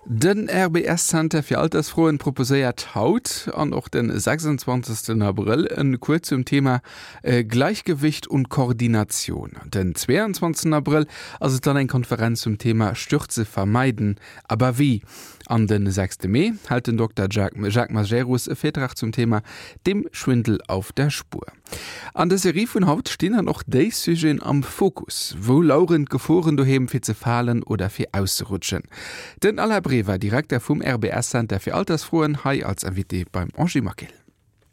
Den RBS Center fir Altersfroen proposéiert haut an och den 26 Abrëll en Cours zum Thema Gleichgewicht und Koordination. Den 22 Abrëll ass et dann eng Konferenz zum Thema Stürze vermeiden, aber wie? An den 6 Mee hält den Dokter Jacques Majerus e Virtrag zum Thema Dem Schwindel auf der Spur. An der Serie vun haut stinn dann och déi Sujeten am Fokus. Wou laueren d'Geforen doheem fir ze falen oder fir auszerutschen? Den Alain Brever, Direkter vum RBS Center fir Altersfroen, hei als Invité beim Angie Maquil.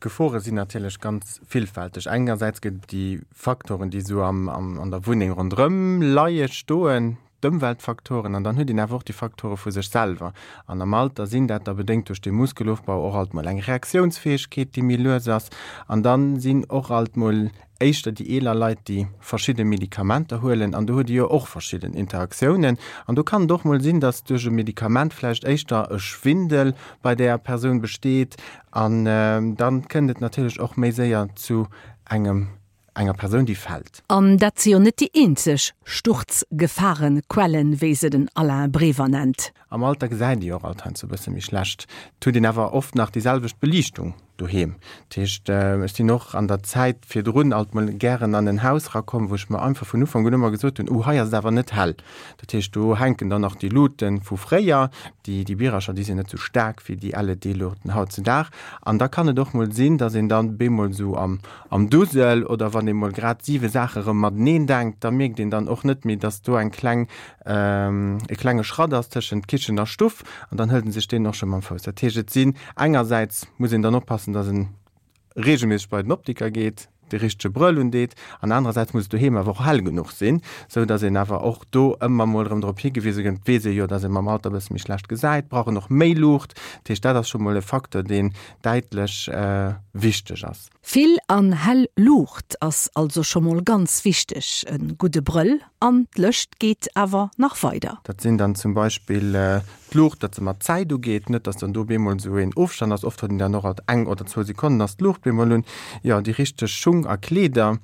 D'Gefore sinn natierlech ganz villfälteg. Engersäits gëtt et déi Faktoren, déi esou an der Wunneng ronderëm leie, stoen, d'Ëmweltfaktoren an dann huet een awer och déi Faktore vu sech selwer. An am Alter sinn dat da bedéngt duerch de Muskelofbau och alt mol eng Reaktiounsfäegkeet, déi méi lues ass. An da sinn och alt mol éischter déi eeler Leit, déi verschidde Medikamenter huelen an do huet ee jo och verschidden Interaktiounen. An do kann et och mol sinn, datt duerch e Medikament vläicht éischter e Schwindel bei där Persoun besteet an da kënnt et natierlech och méi séier zu engem enger Persoun, déi fält. An dat si jo net déi eenzeg Sturzgefahrenquellen, wéi se den Alain Brever nennt. Am Alter gesäit ee jo och alt heiansdo e bësse méi schlecht. Et huet een awer oft nach déi selwecht Beliichtung doheem. Dat heescht, ech sinn och an der Zäit virdrun alt mol gären an en Haus erakomm, wou ech mer einfach vun Ufank un ëmmer gesot hunn, Oh, hei ass et awer net hell. Dat heescht, do hänken dann nach déi Luute vu fréier, déi, déi Birercher, déi sinn net sou staark wéi déi LED-Luuchten hautzudag. An da kann et och mol sinn, dass een dann bemol esou am, am Dusel oder wann ee mol grad siwe Saache rëm mateneen denkt, da mierkt een dann och net méi, dass do eng kleng, e klenge Schratt ass tëschent Kichen a Stuff an dann hëlt en sech deen och scho mam Fouss. Dat heescht, et sinn engersäits muss een dann oppassen, dass en reegelméisseg bei den Optiker geet, de richtege Brëll undeet an anerersäits muss et doheem awer och hell genuch sinn, sou dass een awer och do ëmmer mol erëm drop higewise gëtt. Et weess ee jo, dass ee mam Alter e bësse méi schlecht gesäit, brauch en och méi Luucht. Dat heescht, dat ass scho mol e Facteur, deen däitlech wichteg ass. Vill an hell Luucht ass also scho mol ganz wichteg, e gudde Brëll an d'Lëscht geet awer nach weider. Dat sinn dann zum Beispill d'Luucht, datt se mat Zäit ugeet, net datt dann do bemol esou een Ofstand ass, oft huet een dann och alt eng oder zwou Sekonnen ass d'Luucht bemol un. Jo, déi richteg Schung a Kleeder.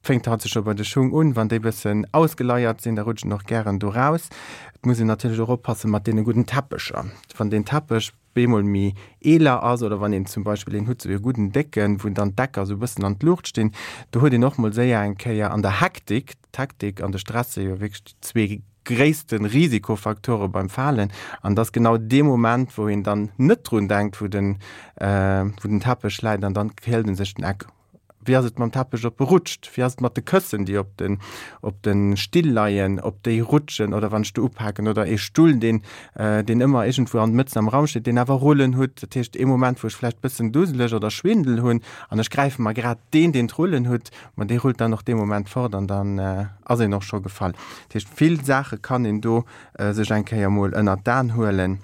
Fänkt haut scho bei de Schung un, wann déi bëssen ausgeleiert sinn, da rutschen och gären do raus. Et muss een natierlech och oppasse mat deene gudden Teppecher. Wann deen Teppech bemol méi eeler ass oder wann een zum Beispill een hutt, sou ee gudden décken, wou dann d'Ecker sou bëssen an d'Luucht stinn, do huet een och mol séier eng Kéier an der Hektik, d'Hektik an de Stress si jo wierklech déi zwee gréisste Risikofaktore beim Falen, an et ass genau dee Moment, wou een dann net drun denkt, wou den, wou den Teppech läit an dann hëlt en sech den Eck. Wéi ass et mam Teppech, ob e rutscht? Wéi ass et mat de Këssen, déi op den, op de Still leien, ob déi rutschen oder wann ech do upaken? Oder ee Stull, deen, deen ëmmer iergendwou an mëtzen am Raum steet, deen awer Rullen hutt. Dat heescht, ee Moment, wou ech vläicht bëssen duseleg oder Schwindel hunn an ech gräife mer grad deen, deen d'Rullen hutt, ma dee rullt dann och dee Moment fort an dann ass een och scho gefall. Dat heescht, vill Saache kann een do sech eng Kéier mol ënnert d'An huelen.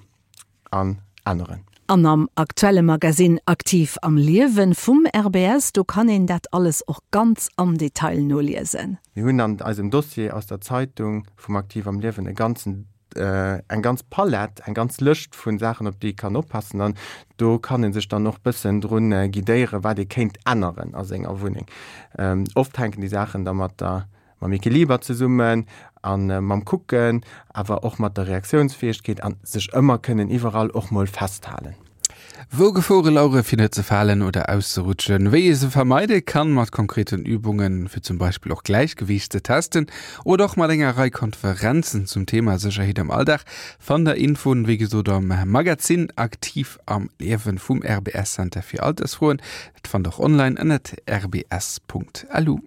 an änneren. An am aktuelle Magasinn Aktiv am Liewen vum RBS, do kann een dat alles och ganz am Detail noliesen. Mir hunn an eisem Dossier aus der Zeitung vum Aktiv am Liewen e ganzen, eng ganz Palett, eng ganz Lëscht vu Saachen, op déi ee kann oppassen. An do kann ee sech dann och bëssen drun guidéieren, wat ee kéint änneren a senger Wunneng. Oft hänken déi Saachen da mat der mam Equiliber zesummen a mam Kucken, awer och mat der Reaktiounsfäegkeet an sech ëmmer kënnen iwwerall och mol festhalen. Wou Gefore lauere fir net ze falen oder auszerutschen, wéi ee se vermeide kann mat konkreten Übungen, fir zum Beispill och Gläichgewiicht ze testen oder och mat enger Rei Konferenzen zum Thema Sécherheet am Alldag, fannt der Infoen wéi gesot am Magazin Aktiv am Liewen vum RBS Center fir Altersfroen. Dat fannt der och online ënnert rbs.lu.